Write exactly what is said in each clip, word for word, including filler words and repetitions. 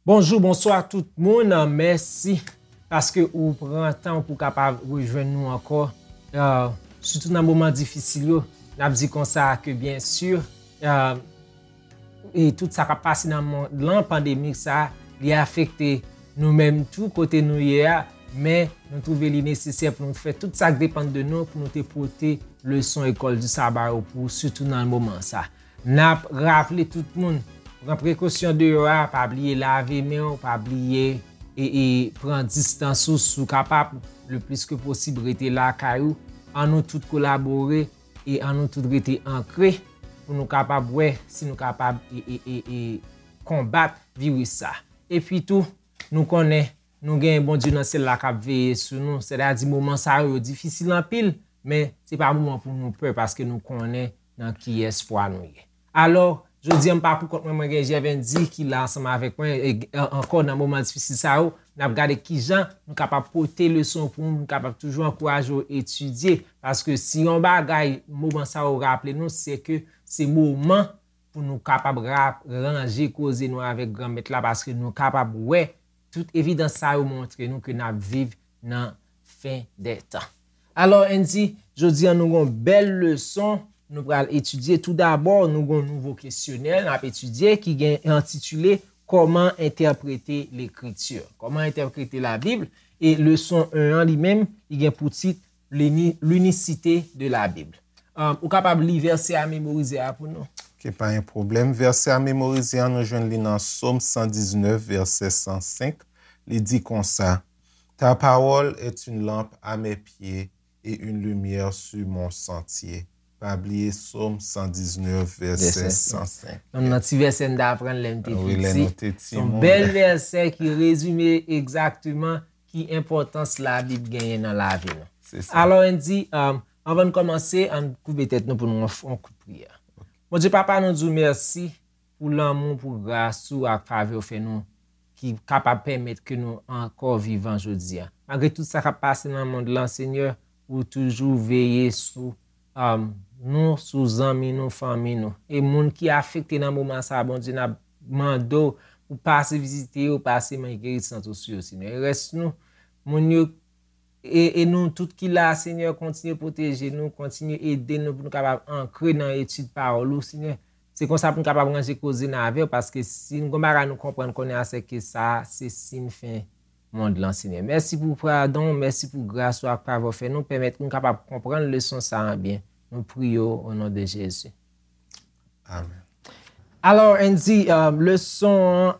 Bonjou, bonswa tout moun. Mèsi paske ou pran tan pou kapab rejwenn nou ankò. Euh, sitou nan moman difisil yo, n ap di konsa ke byen si, euh, e tout sa k ap pase nan mond lan, pandemi sa, li afekte nou menm tou kote nou ye a, men nou twouve li nesesè pou nou fè tout sa k depann de nou pou nou te pote leson École du Sabbat yo pou sitou nan moman sa. N ap raple tout moun, pran prekosyon deyò a, pa bliye lave men w, pa bliye e, e pran distans ou si w kapab, le plis ke posib rete lakay ou. An nou tout kolabore e an nou tout rete ankre pou nou kapab wè si nou kapab e, e, e, e konbat viris sa. Epi tou, nou konnen nou gen Bondye nan syèl la k ap veye sou nou, sètadi moman sa yo, yo difisil anpil, men se pa moman pou nou pè paske nou konnen nan kiyès fwa nou ye. Alò, jodi a m pa pou kont mwen, mwen gen Jèvendi ki la ansanm avèk mwen, e, e, ankò nan moman difisil sa yo, n ap gade kijan nou kapab pote leson pou nou, nou kapab toujou ankouraje w etidye, paske si yon bagay moman sa yo raple nou, se ke se moman pou nou kapab ra-, ranje koze nou avèk Granmèt la, paske nou kapab wè tout evidans sa yo montre nou ke n ap viv nan fen dè tan. Alò, Andy, jodi a nou gon bèl leson nou pral etidye. Toudabò, nou gon nouvo kesyonè n ap etidye ki gen entitile Kòman entèprete Lekriti? Kòman entèprete Labib? E leson en an li menm, li gen pou tit L'uni-, l'unicité de la Bible. Um, ou kapab li vèsè a memorize a pou nou? Ok, pa gen pwoblèm. Vèsè a memorize a, nou jwenn li nan Sòm san diznèf, vèsè san senk. Li di konsa, Ta parole est une lampe à mes pieds et une lumière sur mon sentier. Pa bliye Sòm san diznèf, vèsè san senk. Nan ti vèsè n te aprann lè n te piti. Wi, lè nou te timoun. Se yon bèl vèsè ki rezime egzakteman ki enpòtans Labib genyen nan lavi nou. Se sa. Alò, Andy, um, anvan n kòmanse, ann koube tèt nou pou nou fè yon kout priyè. Bondye Papa, nou di w mèsi pou lanmou, pou gras ou ak favè w fè nou, ki kapab pèmèt ke nou ankò vivan jodi a. Malgre tout sa k ap pase nan mond lan, Senyè, ou toujou veye sou, um, nou, sou zanmi nou, fanmi nou. E moun ki afekte nan moman sa a, Bondye, n ap mande w pou pase vizite yo, pase men gerisant ou sou yo, Senyè. E rès nou, moun yo, e, e nou tout ki la, Senyè, kontinye pwoteje nou, kontinye ede nou pou nou kapab ankre nan etid pawòl ou, Senyè. Se konsa pou n kapab ranje koze n avè w, paske si n gon bagay nou konprann kounye a, se ke sa, se siy fen mond lan, Senyè. Mèsi pou padon, mèsi pou gras ou ak favè w fè nou, pèmèt nou kapab konprann leson sa a byen. Nou priye w o non de Jezi. Amèn. Alò, Andy, euh, leson an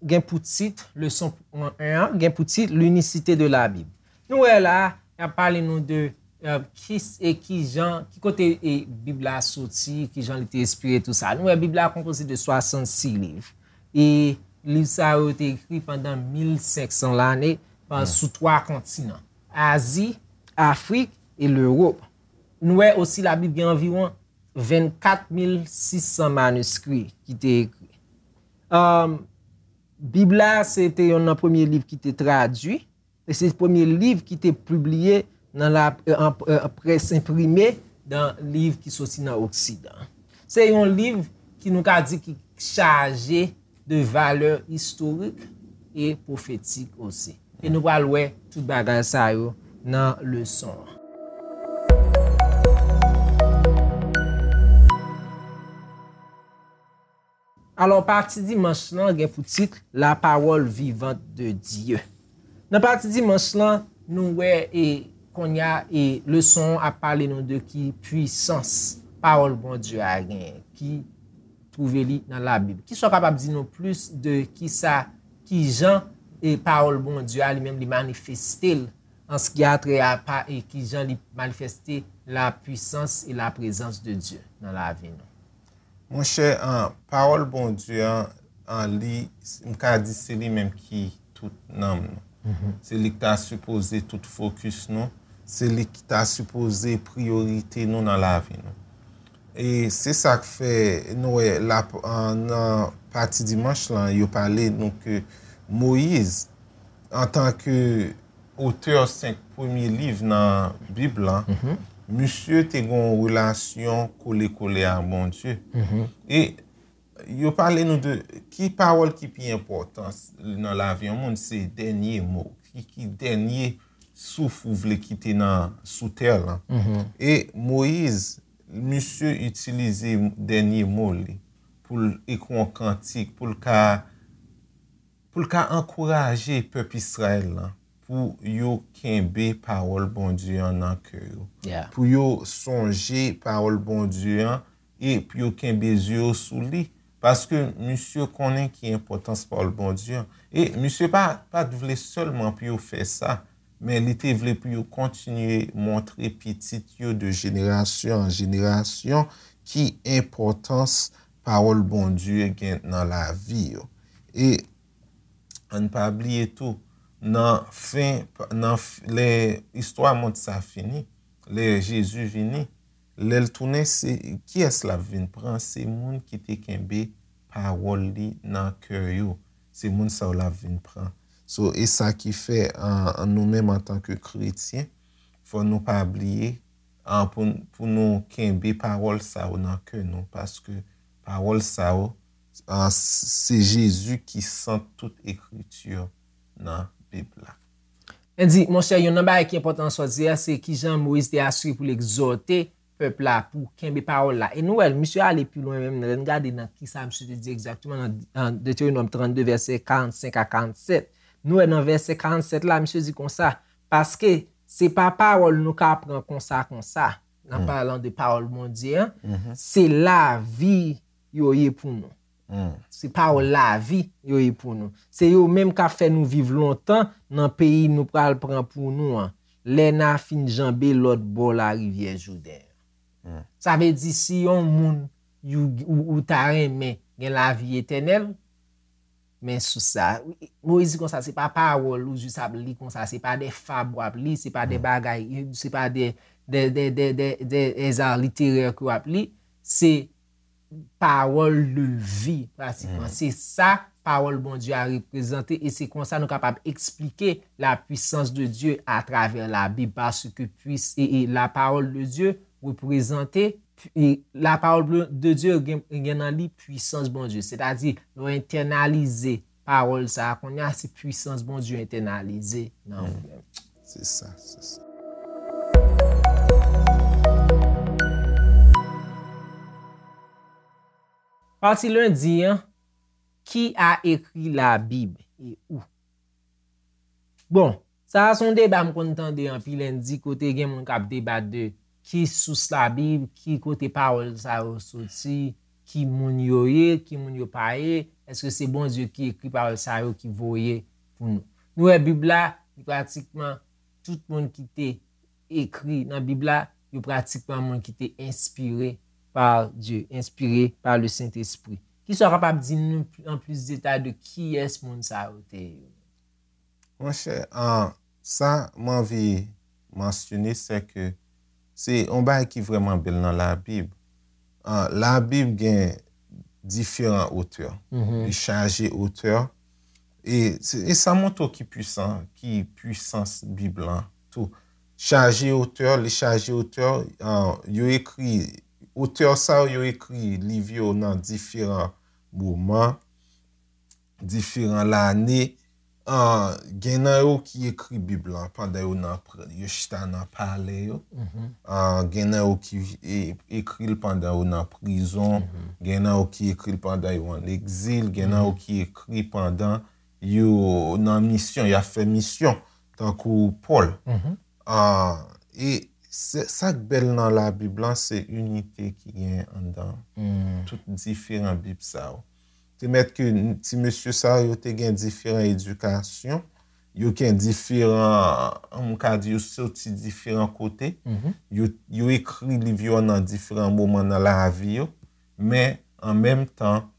gen pou tit, leson en an, gen pou tit L'unicité de la Bible. Nou wè la, y ap pale nou de, euh, ki, e ki jan, ki kote, e, Bib la soti, ki jan li te enspire, tou sa. Nou wè Bib la konpoze de swasannsis liv. E liv sa yo te ekri pandan mil senk san lane, pa, sou twa kontinan. Azi, Afrik e Lewòp. Nou wè osi Labib gen anviwon vennkat mil sis san maniskri ki te ekri. Um, Bib la, se te yonn nan premye liv ki te tradui, e se premye liv ki te pibliye nan la, an, an, près enprime nan liv ki soti nan Oksidan. Se yon liv ki nou ka di ki chaje de valè istorik e pwofetik osi. E nou pral wè tout bagay sa yo nan leson an. Alò, pati dimanch lan gen pou tit La parole vivante de Dieu. Nan pati dimanch lan, nou wè e kounye a e leson an ap pale nou de ki pwisans pawòl Bondye a genyen, ki twouve li nan Labib. Kisa w kapab di nou plis de kisa, ki jan e pawòl Bondye a li menm li manifeste l an se ki a trè a pa e ki jan li manifeste la puissance et la présence de Dieu nan lavi nou? Monchè, an, pawòl Bondye an, an li, m ka di se li menm ki tout nanm nou. Se li ki ta sipoze tout fokis nou, se li ki ta sipoze priyorite nou nan lavi nou. E se sa k fè nou wè la, an, nan pati dimanch lan, yo pale nou ke Moyiz, antanke otè senk premye liv nan Bib lan, misye te gen yon relasyon kole kole ak Bondye. E Yo pale nou de ki pawòl ki pi enpòtan nan lavi yon moun, se dènye mo. Ki, ki dènye souf ou vle kite nan, sou tè lan. E Moyiz, misye itilize dènye mo li pou l ekri yon kantik, pou l ka, pou l ka ankouraje pèp Izrayèl lan, pou yo kenbe pawòl Bondye an nan kè yo, pou yo sonje pawòl Bondye an, e pou yo kenbe zye yo sou li. Paske misye konnen ki enpòtans pawòl Bondye an. E misye pa, pa t vle sèlman pou yo fè sa, men li te vle pou yo kontinye montre pitit yo de jenerasyon an jenerasyon ki enpòtans pawòl Bondye gen nan lavi yo. E ann pa bliye tou, nan fen, nan f-, lè istwa mond sa fini, lè Jezi vini, lè l tounen, se kiyès l ap vin pran? Se moun ki te kenbe pawòl li nan kè yo. Se moun sa yo l ap vin pran. So, e sa ki fè, an, an nou menm antanke kretyen, fò nou pa bliye, an, pou, pou nou kenbe pawòl sa yo nan kè nou, paske pawòl sa yo, an, s-, se Jezi ki sant tout ekriti nan Bib la. Andy, monchè, youn nan bagay ki enpòtan nan sa w di a, se kijan Moyiz te asire pou l egzòte pèp la pou kenbe pawòl la. E nou wè, misye ale pi lwen menm, lè n gade nan kisa misye te di egzakteman nan, nan Detewonòm trannde, vèsè karannsenk a karannsèt. Nou wè nan vèsè karannsèt la, misye di konsa, paske se pa pawòl nou ka pran konsa, konsa, nan palan de pawòl Bondye an, se lavi yo ye pou nou. Se pawòl lavi yo ye pou nou. Se yo menm k ap fè nou viv lontan nan peyi nou pral pran pou nou an, lè n a fin janbe lòt bò larivyè Jouden an. Sa vle di si yon moun ou, ou, ou ta renmen gen lavi etènèl, men sou sa, Moyiz di konsa, se pa pawòl ou jis ap li konsa, se pa de fab w ap li, se pa de bagay, se pa de, de, de, de, de, de, de eza literè ke w ap li, se pawòl de vi, pratikman. Se sa pawòl Bondye a reprezante e se konsa nou kapab eksplike la puissance de Dieu à travers la Bible, paske puis, e, e la parole de Dieu reprezante, e la parole de Dieu gen, gen nan li pwisans Bondye. Sètadi, lè w entènalize pawòl sa a, kounye a se pwisans Bondye entènalize nan ou menm. Se sa, se sa. Pati lendi an, qui a écrit la Bible et où? Bon, sa a se yon deba m konn tande anpil lendi kote gen moun k ap debat de ki sous Labib, ki kote pawòl sa yo soti, ki moun yo ye, ki moun yo pa ye, èske se Bondye ki ekri pawòl sa yo ki voye pou nou? Nou wè Bib la, li pratikman tout moun ki te ekri nan Bib la, yo pratikman moun ki te enspire par Dieu, inspiré par le Saint-Esprit. Kisa w kapab di nou an plis detay de kiyès moun sa yo te ye? Monchè, an, sa m anvi mansyone, se ke se yon bagay ki vrèman bèl nan Labib. An, Labib gen diferan otè. Li chaje otè. E, e sa montre w ki pwisan, ki pwisans Bib lan tou. Chaje otè, li chaje otè, an, yo ekri, otè sa yo, yo ekri liv yo nan diferan moman, diferan lane. An, gen nan yo ki ekri Bib lan pandan yo nan, yo chita nan palè yo. An, gen nan yo ki e, ekri l pandan yo nan prizon. Gen nan yo ki ekri l pandan yo an egzil. Gen nan yo ki ekri pandan yo nan misyon, y ap fè misyon, tankou Pòl. An, e sa k bèl nan Labib lan, se inite ki gen anndan tout diferan Bib sa yo. Te mèt ke ti mesye sa yo te gen diferan edikasyon, yo gen diferan, m ka di yo soti diferan kote, yo, yo ekri liv yo nan diferan moman nan lavi yo, men an menm tan,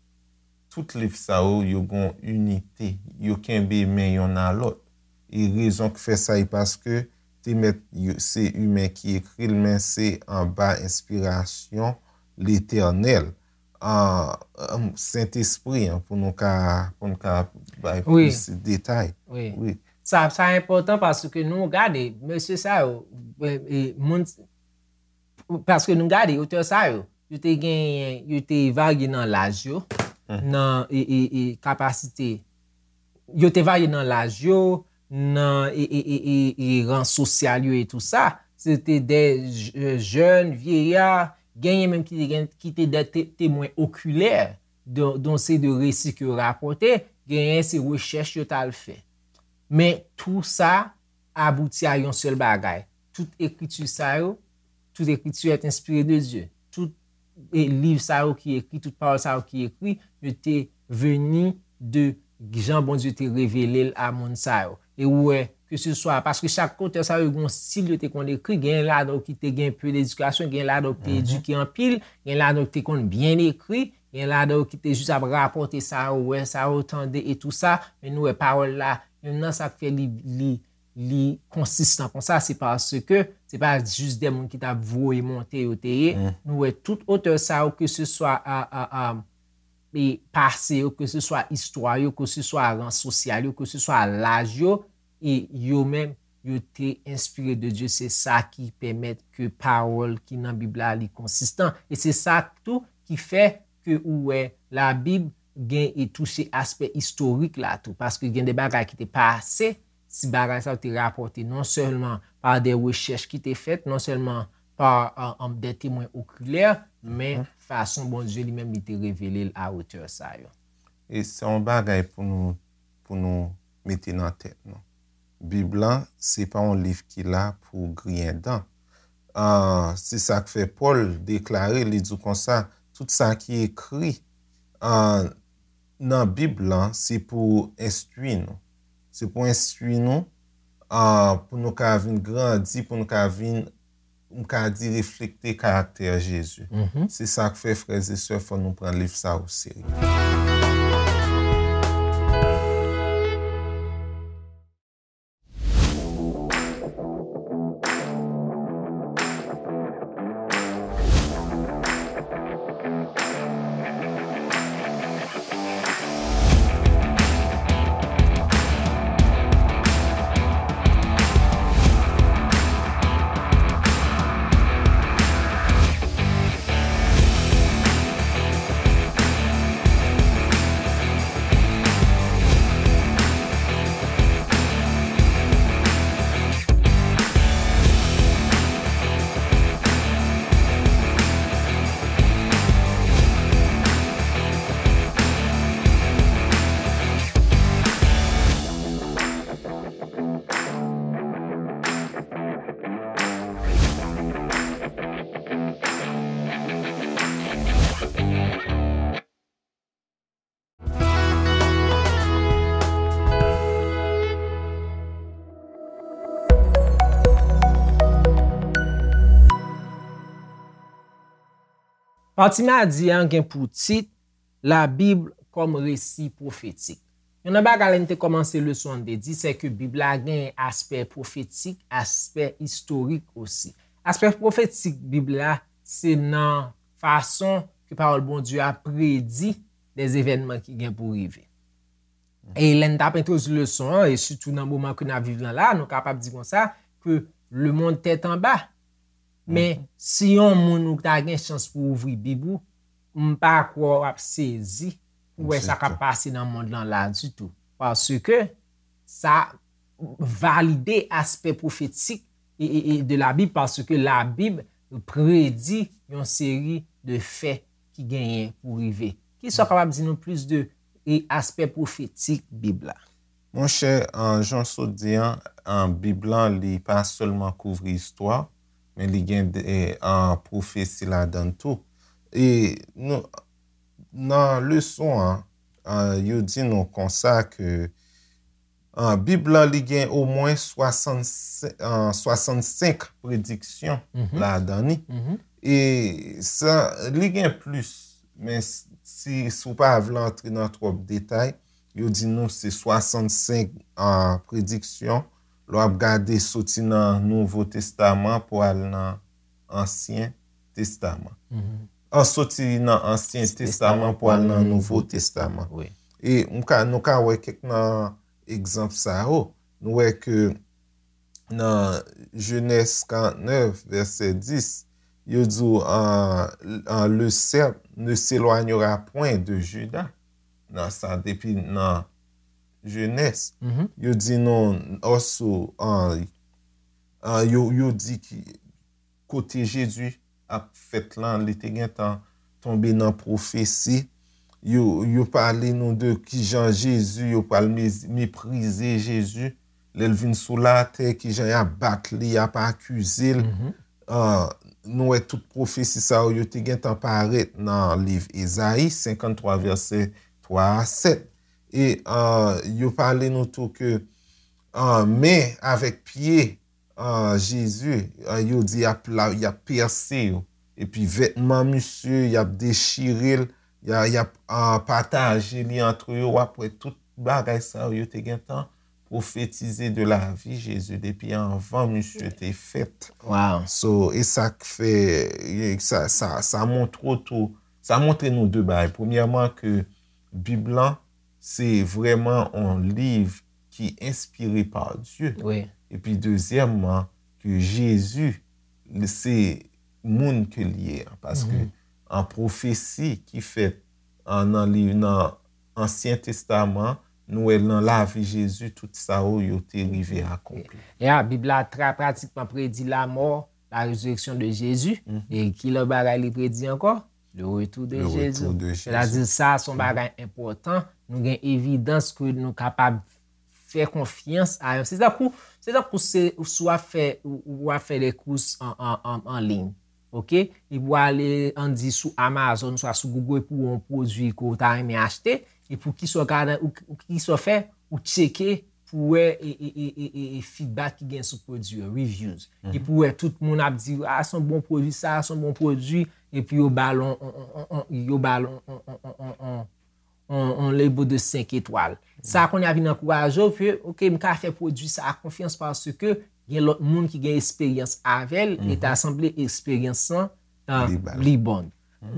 tout liv sa yo, yo gen yon inite, yo kenbe men yonn a lòt. E rezon k fè sa, e paske te mèt se imen ki ekri l, men se anba enspirasyon Letènèl, an, Sentespri an, pou nou ka, pou nou ka bay plis detay. Wi. Sa, sa enpòtan paske nou gade, mesye sa yo, e, e, moun, paske nou gade, otè sa yo, yo te genyen, yo te varye nan laj yo, nan e, e, e, kapasite. Yo te varye nan laj yo, nan e, e, e, e, e ran sosyal yo e tou sa. Se te de j- jèn, vyeya, genyen menm ki te, gen, ki te de te, temwen okilè de, de yon seri de resi ke yo rapòte, genyen se rechèch yo t al fè. Men tou sa abouti a yon sèl bagay. Tout ekriti sa yo, tout ekriti est inspiré de Dieu. Tout e, liv sa yo ki ekri, tout pawòl sa yo ki ekri, yo te vini de jan Bondye te revele l a moun sa yo. E ou wè, ke se swa, paske chak otè sa yo gen yon stil yo te konn ekri, gen ladan yo ki te gen pe ledikasyon, gen ladan yo ki te edike anpil, gen ladan yo ki te konn byen ekri, gen ladan yo ki te jis ap rapòte sa yo wè, sa yo tande e tou sa, men nou wè pawòl la, menm nan sa k fè li, li, li konsistan konsa, se paske se pa jis de moun ki t ap voye monte yo te ye. Nou wè tout otè sa yo, ke se swa a, a, a, e pase yo, ke se swa istwa yo, ke se swa ran sosyal yo, ke se swa laj yo, e yo menm, yo te enspire de Dye. Se sa ki pèmèt ke pawòl ki nan Bib la, li konsistan. E se sa tou ki fè ke ou wè Labib gen e touche aspè istorik la tou, paske gen de bagay ki te pase, si bagay sa yo te rapòte non sèlman pa de rechèch ki te fèt, non sèlman pa, euh, euh, de temwen okilè, men fason Bondye li menm li te revele l a otè sa yo. E se yon bagay pou nou, pou nou mete nan tèt nou. Bib lan, se pa yon liv ki la pou griyen dan. Ah, se sa k fè Pòl deklare, li di konsa, tout sa ki ekri, ah, nan Bib lan, se pou enstwi nou. Se pou enstwi nou, ah, pou nou ka vin grandi, pou nou ka vin, m ka di, reflekte karaktè Jezi. Se sa k fè, frè e sè, fò nou pran liv sa oserye. Pati madi a gen pou tit Labib kòm resi pwofetik. Youn nan bagay lè n te kòmanse leson an te di, se ke Bib la gen aspè pwofetik, aspè istorik osi. Aspè pwofetik Bib la, se nan fason ke pawòl Bondye a predi de evènman ki gen pou rive. E lè n t ap entwodui leson an, e sitou nan moman ke n ap viv lan la, nou kapab di konsa, ke le monde tèt anba. Men, si yon moun ou ta gen chans pou ouvri Bib ou, m pa kwè w ap sezi pou wè sa k ap pase nan mond lan la ditou. Paske sa valide aspè pwofetik e, e, e de Labib, paske Labib predi yon seri de fè ki genyen pou rive. Kisa w kapab di nou plis de, e, aspè pwofetik Bib la? Monchè, an, jan w sot di an, an, Bib lan, li pa sèlman kouvri istwa, men li gen de, e, an, pwofesi ladan l tou. E nou, nan leson an, an, yo di nou konsa ke, an, Bib lan, li gen omwen swasannsenk, an, swasannsenk prediksyon ladan li. E sa, li gen plis, men s- si, si w pa vle antre nan twòp detay, yo di nou se swasannsenk, an, prediksyon. Lè w ap gade soti nan Nouvo Testaman pou al nan Ansyen Testaman. An, soti nan Ansyen Testaman pou al nan Nouvo Testaman. E m ka, nou ka wè kèk nan egzanp sa yo. Nou wè ke nan Jenèz karantnèf, vèsè dis, yo di w, euh, euh, le sceptre ne s'éloignera point de Juda. Nan sa, depi nan Jenès, yo di nou, oso, euh, euh, yo, yo di ki kote Jezi ap fèt lan, li te gentan tonbe nan pwofesi. Yo, yo pale nou de kijan Jezi, yo pral mez- meprize Jezi. Lè l vin sou latè, kijan y ap bat li, y ap akize l. Ah, nou wè tout pwofesi sa yo, yo te gentan parèt nan liv Ezayi senkanntwa, vèsè twa a sèt. E, ah, yo pale nou tou ke, ah, men avèk pye, ah, Jezi, ah, yo di y ap la, y ap pèse yo. Epi vètman misye, y ap dechire l, y a, y ap, ah, pataje li antre yo. W ap wè tout bagay sa yo, yo te gentan pwofetize de lavi Jezi depi anvan misye te fèt. Wow. So, e sa k fè, e sa, sa, sa montre w tou, sa montre nou de bagay. Premyèman, ke Bib lan, se vrèman yon liv ki enspire pa Dye. Wi. Epi dezyèmman, ke Jezi, li se moun ke li ye an. Paske an pwofesi ki fèt an, nan liv, nan Ansyen Testaman, nou wè nan lavi Jezi, tout sa yo, yo te rive akonpli. Ya, Bib la tra pratikman predi la mort, la résurrection de Jésus. E ki lòt bagay li predi ankò? Le retour de Le Jésus. retour de Jésus. Sètadi sa, se yon bagay enpòtan. Nou gen evidans ke nou kapab fè konfyans a yon. Se tankou, se tankou se, si w ap fè, ou, ou ap fè de kous an, an, an, an liy. Oke? Epi w ale, ann di, sou Amazon, swa sou Google, epi w wè yon pwodui ke w ta renmen achte, epi w ki sa w ka, ou, ou ki sa w fè, ou tcheke pou w wè e, e, e, e, e, e feedback ki gen sou pwodui yo, reviews. Epi w wè tout moun ap di, a, se yon bon pwodui, sa, se yon bon pwodui, epi yo ba l on, on, on, on, on, yo ba l on, on, on, on, on, on, on label de senk etwal. Sa kounye a vin ankouraje w ke, oke, m ka fè pwodui sa a konfyans paske gen lòt moun ki gen esperyans avè l, e ta sanble esperyans lan, ah, Li ba l. Li bon.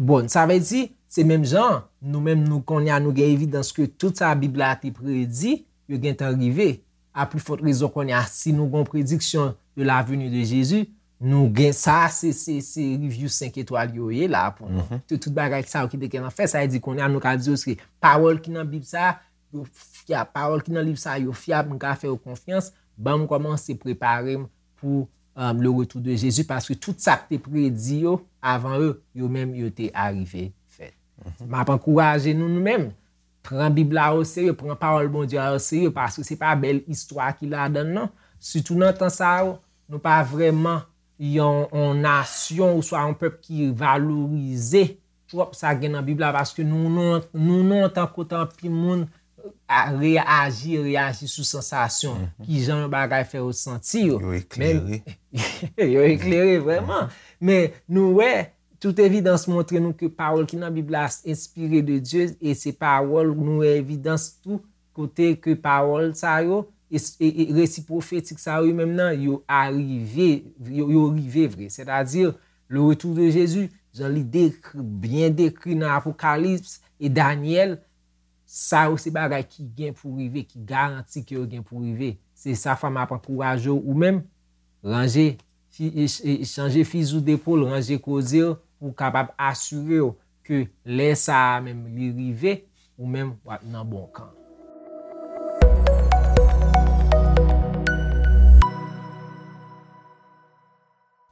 Bon, sa vle di, se menm jan, nou menm nou kounye a, nou gen evidans ke tout sa Bib la te predi, yo gentan rive. A pli fòt rezon kounye a, si nou gen yon prediksyon de la venue de Jésus, nou gen sa, se, se, se review senk etwal yo ye la pou nou. Tout, tout bagay sa yo ki te gentan fèt, sa vle di kounye a, nou ka di yo se pawòl ki nan Bib sa, yo fyab, pawòl ki nan liv sa, yo fyab, nou ka fè yo konfyans, ban m kòmanse prepare m pou, um, le retour de Jésus, paske tout sa k te predi yo avan yo, yo menm yo te arive fèt. M ap ankouraje nou, nou menm, pran Bib la o serye, pran pawòl Bondye a o serye, paske se pa bèl istwa ki ladan l, non. Sitou nan tan sa yo, nou pa vrèman yon, yon nasyon oswa yon pèp ki valorize twòp sa gen nan Bib la, paske nou, nou, nou, nou, tankou anpil moun, a, reyaji, reyaji sou sansasyon, ki jan yon bagay fè yo santi yo. Yo eklere. Yo eklere, vrèman. Men nou wè, tout evidans montre nou ke pawòl ki nan Bib la enspire de Dye, e se pawòl, nou wè evidans tou, kote ke pawòl sa yo, e, e, e resi pwofetik sa yo menm nan, yo arive, yo, yo rive vre. Sètadi, le retour de Jésus, jan li dekri, byen dekri nan Apokalips e Danyèl, sa yo se bagay ki gen pou rive, ki garanti ke yo gen pou rive. Se sa fè m ap ankouraje w ou menm, ranje, fi, e, e, chanje fizi w depol, ranje koze w, pou w kapab asire w ke lè sa a menm li rive, ou menm w ap nan bon kan.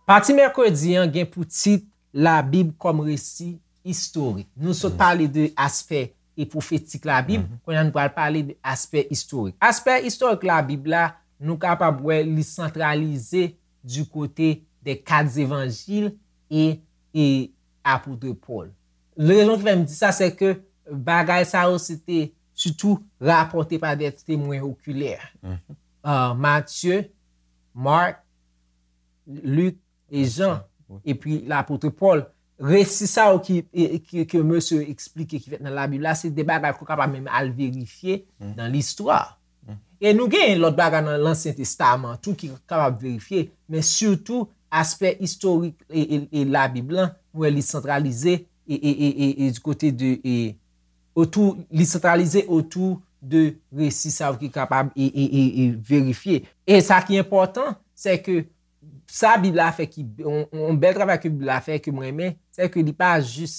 Pati mèkredi an gen pou tit Labib kòm resi istorik. Nou sot pale de aspè e pwofetik Labib, kounye a nou pral pale de aspè istorik. Aspè istorik Labib la, nou kapab wè li santralize du côté des quatre évangiles et, et apôtre Paul. Rezon ki fè m di sa, se ke bagay sa yo se te sitou rapòte pa de temwen okilè. Ah, Matye, Mak, Lik e Jan, epi lapot Pòl. Resi sa yo ki, e, ki, ke mesye eksplike ki fèt nan Labib la, se de bagay ke w kapab menm al verifye nan listwa. E nou gen lòt bagay nan Lansyen Testaman tou ki kapab verifye, men sitou aspè istorik e, e, e Labib lan, nou wè li santralize e, e, e, e, e du côté de, e, otou, li santralize otou de resi sa yo ki kapab e, e, e, e verifye. E sa ki enpòtan, se ke sa Bib la fè ki, yon, yon bèl travay ke Bib la fè ke mwen renmen, se ke li pa jis,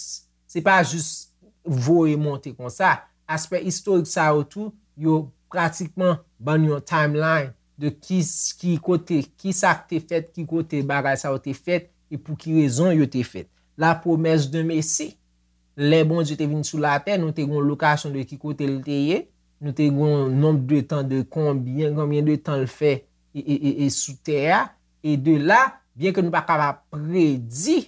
se pa jis voye monte konsa. Aspè istorik sa yo tou, yo pratikman ban nou yon timeline de ki, ki kote, ki sa k te fèt, ki kote bagay sa yo te fèt, e pou ki rezon yo te fèt. La promesse d'un Messie, lè Bondye te vin sou latè, nou te gen yon lokasyon de ki kote l te ye, nou te gen yon nonb de tan de konbyen, konbyen de tan l fè e, e, e, e sou tè a, e de la, byen ke nou pa kapab predi,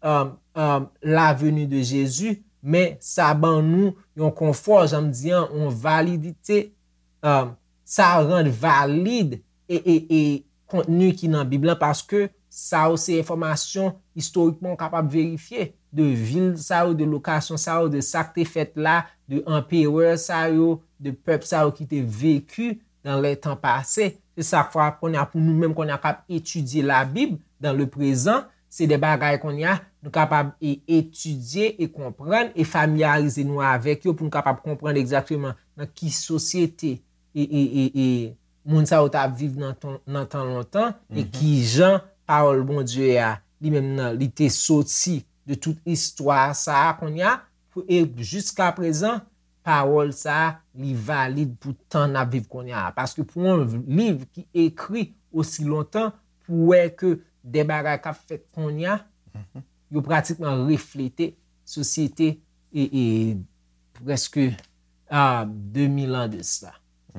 um, um, la venue de Jésus, men sa ban nou yon konfò, jan m di an, yon validite, um, sa rann valid e, e, e kontni ki nan Bib lan, paske sa yo se enfòmasyon istorikman w kapab verifye de vil sa yo, de lokasyon sa yo, de sa k te fèt la, de anperè sa yo, de pèp sa yo ki te veki dans les temps passés. Se sa k fè kounye a pou nou menm kounye a k ap etidye Labib dans le présent, se de bagay kounye a nou kapab e etidye e konprann e familyarize nou avèk yo pou nou kapab konprann egzakteman nan ki sosyete e, e, e, e moun sa yo t ap viv nan tan, nan tan lontan, e ki jan pawòl Bondye a, li menm nan, li te soti de tout istwa sa a kounye a, pou, e jiska prezan, pawòl sa a, li valid pou tan n ap viv kounye a. Paske pou yon liv ki ekri osi lontan, pou wè ke de bagay k ap fèt kounye a, yo pratikman reflete sosyete e, e prèske, ah, de mil an de sa.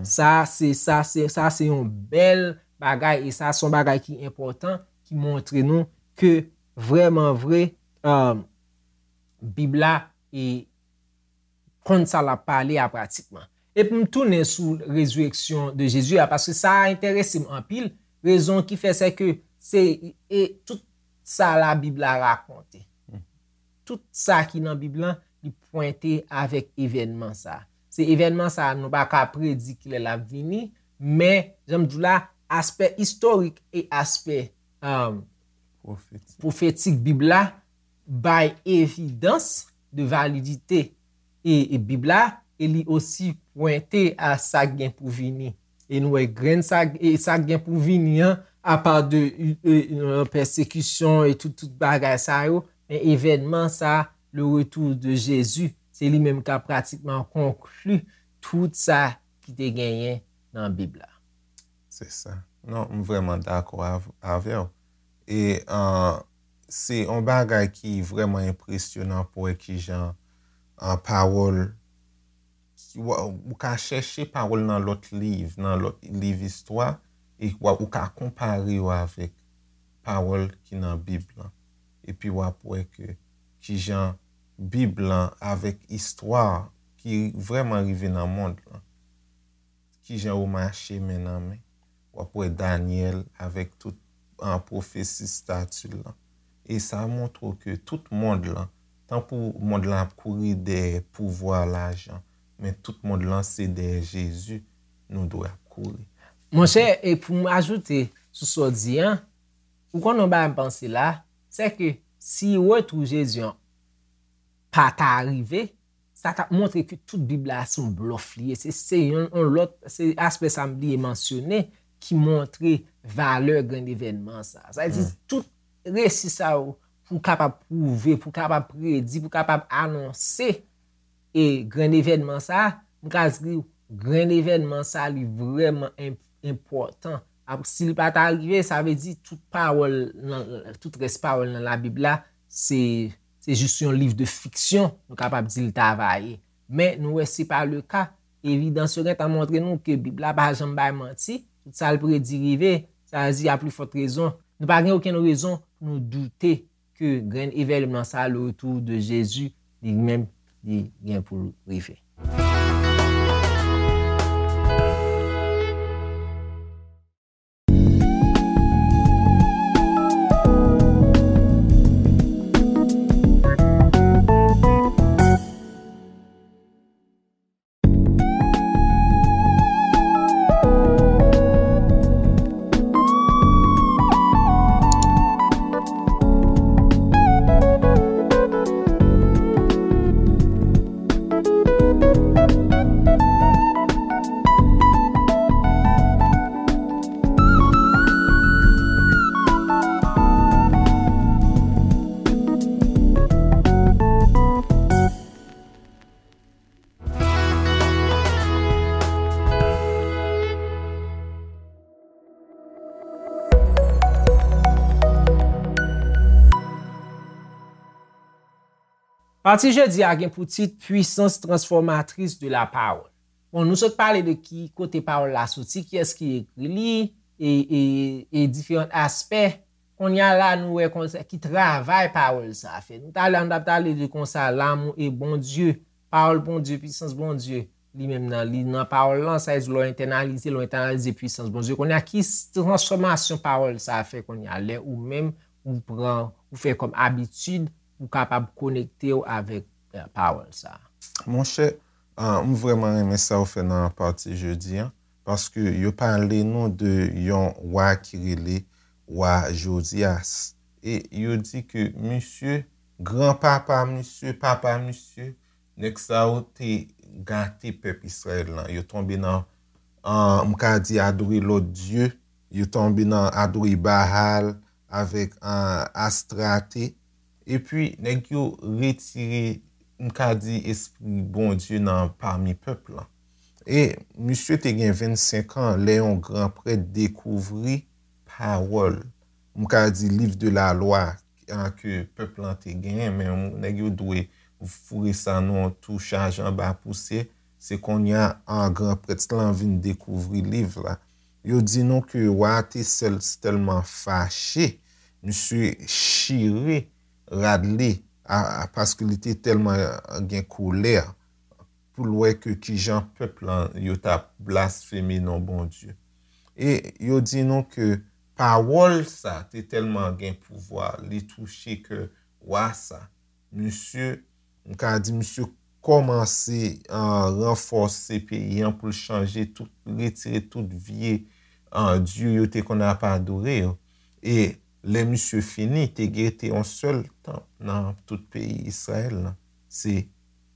Sa se, sa se, sa se yon bèl bagay, e sa se yon bagay ki enpòtan, ki montre nou ke vrèman vre, ah, Bib la e konn sa l ap pale a pratikman. E pou m tounen sou rezireksyon de Jezi a, paske sa a enterese m anpil, rezon ki fè se ke se, e tout sa Labib la rakonte. Tout sa ki nan Bib lan, li pwente avèk evènman sa a. Se evènman sa a, nou pa ka predi kilè l ap vini, men, jan m di w la, aspè istorik e aspè, um, pwofetik Bib la bay evidans de validite e, e Bib la, e li osi pwente a sa k gen pou vini. E nou wè grenn sa, e sa k gen pou vini an, apa de, e, e, pèsekisyon e tout, tout bagay sa yo, men evènman sa, le retour de Jésus, se li menm k ap pratikman konkli tout sa ki te genyen nan Bib la. Se sa. Non, m vrèman dakò av-, avè w. E, ah, se yon bagay ki vrèman enpresyonan pou wè kijan, ah, pawòl, ki w, ou ka chèche pawòl nan lòt liv, nan lòt liv istwa, e w, ou ka konpare yo avèk pawòl ki nan Bib lan. Epi w ap wè ke kijan Bib lan avèk istwa ki vrèman rive nan mond lan, kijan yo mache men nan men. W ap wè Danyèl avèk tout, ah, pwofesi stati l lan. E sa montre w ke tout mond lan, tankou mond lan ap kouri dèyè pouvwa, lajan, men tout mond lan se dèyè Jezi nou dwe ap kouri. Monchè, e pou m ajoute sou sa w di an, ou konn yon bagay m panse la, se ke si retou Jezi an pa ta rive, sa t ap montre ke tout Bib la se yon blòf li ye. Se, se yon, yon lòt, se aspè sa m bliye mansyone ki montre valè grenn evènman sa. Sa vle di, tout resi sa yo pou kapab pwouve, pou kapab predi, pou kapab anonse e grenn evènman sa, m ka di w, grenn evènman sa, li vrèman enp-, enpòtan. Ap-, si l pa ta rive, sa vle di tout pawòl nan, tout rès pawòl nan Labib la, se, se jis yon liv de fiksyon, nou kapab di l ta va ye. Men nou wè se pa le ka. Evidans yo gentan montre nou ke Bib la pa janm bay manti. Tout sa l predi rive. Sa vle di, a pli fòt rezon, nou pa gen okenn rezon pou nou doute ke grenn evènman sa, le retour de Jésus, li menm, li gen pou l rive. Pati jodi a gen pou tit Puissance transformatrice de la parole. Bon, nou sot pale de ki kote pawòl la soti, kiyès ki ekri li, e, e, e diferan aspè. Kounye a la, nou wè konsa ki travay pawòl sa a fè. Nou talè, nou t ap pale de konsa, l'amour de Bondye, pawòl Bondye, pisans Bondye, li menm nan, li nan pawòl lan, sa vle di lè w entènalize, lè w entènalize pisans Bondye. Kounye a, ki s- transfòmasyon pawòl sa a fè kounye a, lè ou menm, ou pran, ou fè kòm abitid, ou kapab konekte w avèk, eh, pawòl sa a. Monchè, ah, m vrèman renmen sa w fè nan pati jodi an, paske yo pale nou de yon wa ki rele wa Jozyas. E yo di ke misye, granpapa misye, papa misye, nèg sa yo te gate pèp Izrayèl lan. Yo tonbe nan, ah, m ka di, adore lòt dye. Yo tonbe nan adore Baal avèk, ah, Astrate. Epi, nèg yo retire, m ka di, espri Bondye nan pami pèp lan. E misye te gen vennsenk an lè yon gran prèt dekouvri pawòl, m ka di, liv de la lwa, an, ke pèp lan te genyen, men nèg yo dwe foure sa nan yon tou chaje anba pousyè. Se kounye a, an, gran prèt lan vin dekouvri liv la. Yo di nou ke wa a te sèl, tèlman fache, misye chire rad li, a, a, paske li te tèlman gen kolè pou l wè ke kijan pèp lan yo t ap blasfeme non Bondye. E yo di nou ke pawòl sa te tèlman gen pouvwa, li touche kè wa sa. Misye, m ka di, misye kòmanse, ah, ranfòse peyi an pou l chanje tout, retire tout vye, ah, dye yo te konn ap adore yo. E lè misye fini, te rete yon sèl tanp nan tout peyi Izrayèl lan. Se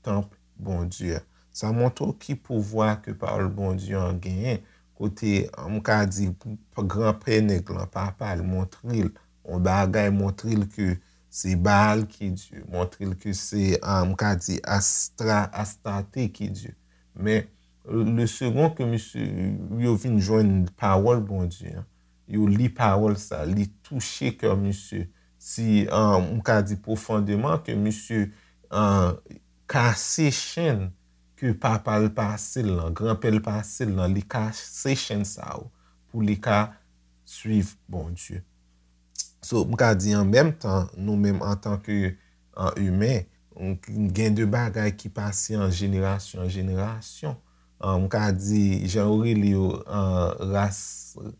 tanp Bondye a. Sa montre w ki pouvwa ke pawòl Bondye an genyen. Kote, m ka di, granpè nèg lan, papa l, montre l yon bagay, montre l ke se Baal ki Dye, montre l ke se, ah, m ka di, Astra, Astarte ki Dye. Men, le second ke misye, yo vin jwenn pawòl Bondye an, yo li pawòl sa, li touche kè misye. Si, ah, m ka di pwofondeman ke misye, ah, kase chenn ke papa l pase l lan, granpè l pase l lan, li kase chenn sa yo pou li ka swiv Bondye. So, m ka di an menm tan, nou menm antanke, ah, imen, gen de bagay ki pase an jenerasyon an jenerasyon. Ah, m ka di, jan yo rele yo, ah, ras,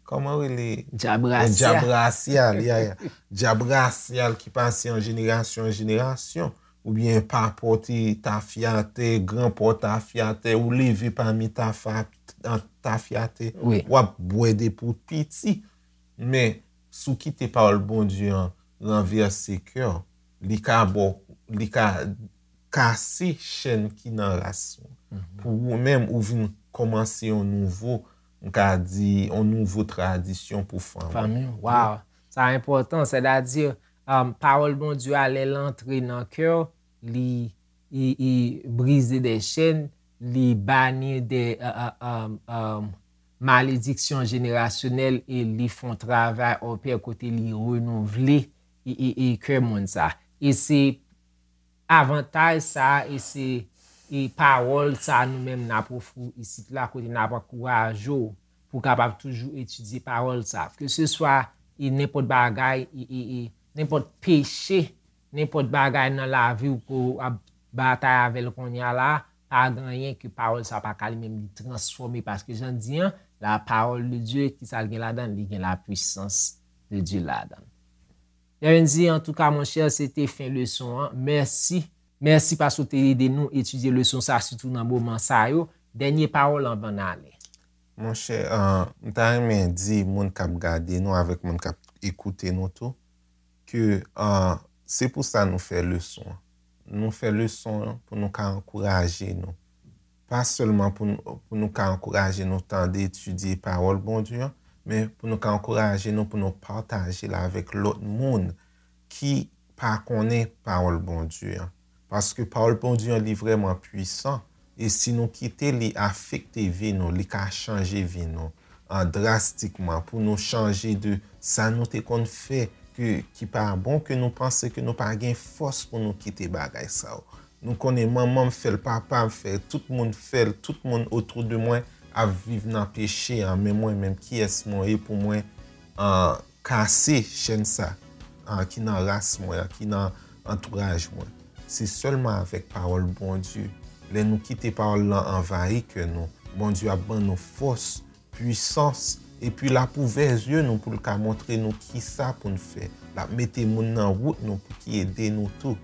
kòman yo rele? Djab rasyal. Djab rasyal, ya, ya. Djab rasyal ki pase an jenerasyon an jenerasyon. Oubyen pa pote tafyatè, gran pò tafyatè, ou leve pami tafa-, tafyatè, Wi. W ap bwè depi w piti. Men, si w kite pawòl Bondye an ranvèse kè w, li ka ba w, li ka kase chenn ki nan ras ou. Pou ou menm, ou vin kòmanse yon nouvo, m ka di, yon nouvo tradisyon pou fanmi. Fanmi, waw. Sa enpòtan, sètadi, um, pawòl Bondye a, lè l antre nan kè w, li, li, li brize de chèn, li bani de, uh, uh, um, um, malediksyon jenerasyonèl e li fè yon travay opè kote li renouvle e, e, e kè moun sa. E se avantaj sa e se e pawòl sa nou menm n ap ofri w isit la kote n ap ankouraje w pou w kapab toujou etidye pawòl sa. Ke se swa e nenpòt bagay, e, e, e nenpòt peche, nenpòt bagay nan lavi w ke w ap batay avè l kounye a la, pa gen anyen ke pawòl sa pa ka li menm li transfòme, paske jan di an, la parole de Dieu, ki sa l gen ladan l? Li gen la puissance de Dieu ladan l. Byenveni, antouka, monchè, se te fen leson an. Mèsi. Mèsi paske w te ede nou etidye leson sa, sitou nan moman sa yo. Dènye pawòl anvan n ale. Monchè, ah, m ta renmen di moun k ap gade nou avèk moun k ap ekoute nou tou, ke, ah, se pou sa nou fè leson an. Nou fè leson an pou nou ka ankouraje nou. Pa sèlman pou nou, pou nou ka ankouraje nou tande, etidye pawòl Bondye an, men pou nou ka ankouraje nou pou nou pataje l avèk lòt moun ki pa konnen pawòl Bondye an. Paske pawòl Bondye an, li vrèman pwisan. E si nou kite li afekte vi nou, li ka chanje vi nou, an, drastikman, pou nou chanje de sa nou te konn fè, ke, ki pa bon, ke nou panse ke nou pa gen fòs pou nou kite bagay sa yo. Nou konnen manman m fè l, papa m fè l, tout moun fè l, tout moun otou de mwen ap viv nan peche an, men mwen menm, kiyès mwen ye pou mwen, an, kase chèn sa, an, ki nan ras mwen an, ki nan antouraj mwen? Se sèlman avèk pawòl Bondye. Lè nou kite pawòl lan anvayi kè nou, Bondye ap ban nou fòs, pwisans, epi l ap ouvè zye nou pou l ka montre nou kisa pou n fè. L ap mete moun nan wout nou pou ki ede nou tou.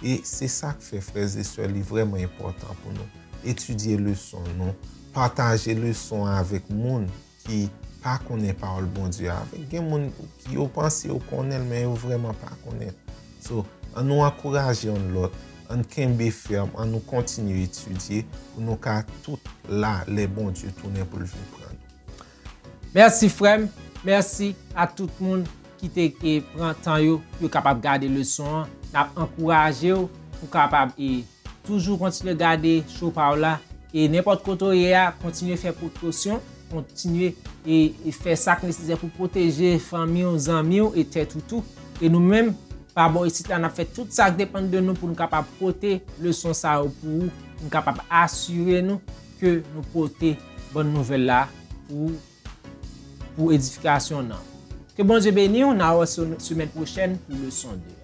E se sa k fè, frè e sè, li vrèman enpòtan pou nou etidye leson nou, pataje leson an avèk moun ki pa konnen pawòl Bondye avèk. Gen moun ki yo panse yo konnen l, men yo vrèman pa konnen l. So, an nou ankouraje youn lòt, an n kenbe fèm, an nou kontinye etidye pou nou ka tout la lè Bondye tounen pou l vin pran nou. Mèsi frè m, mèsi a tout moun ki te e, pran tan yo pou yo kapab gade leson an. N ap ankouraje w pou w kapab e, toujou kontinye gade show pa w la. E nenpòt kote w ye a, kontinye fè prekosyon, kontinye e, e fè sa k nesesè pou pwoteje fanmi w, zanmi w e tèt ou tou. E nou menm, pa bò isit la, n ap fè tout sa k depann de nou pou nou kapab pote leson sa yo pou ou, pou nou kapab asire nou ke nou pote bòn nouvèl la pou ou, pou edifikasyon w nan. Ke Bondye beni w, n a wè se semèn pwochèn pou leson de.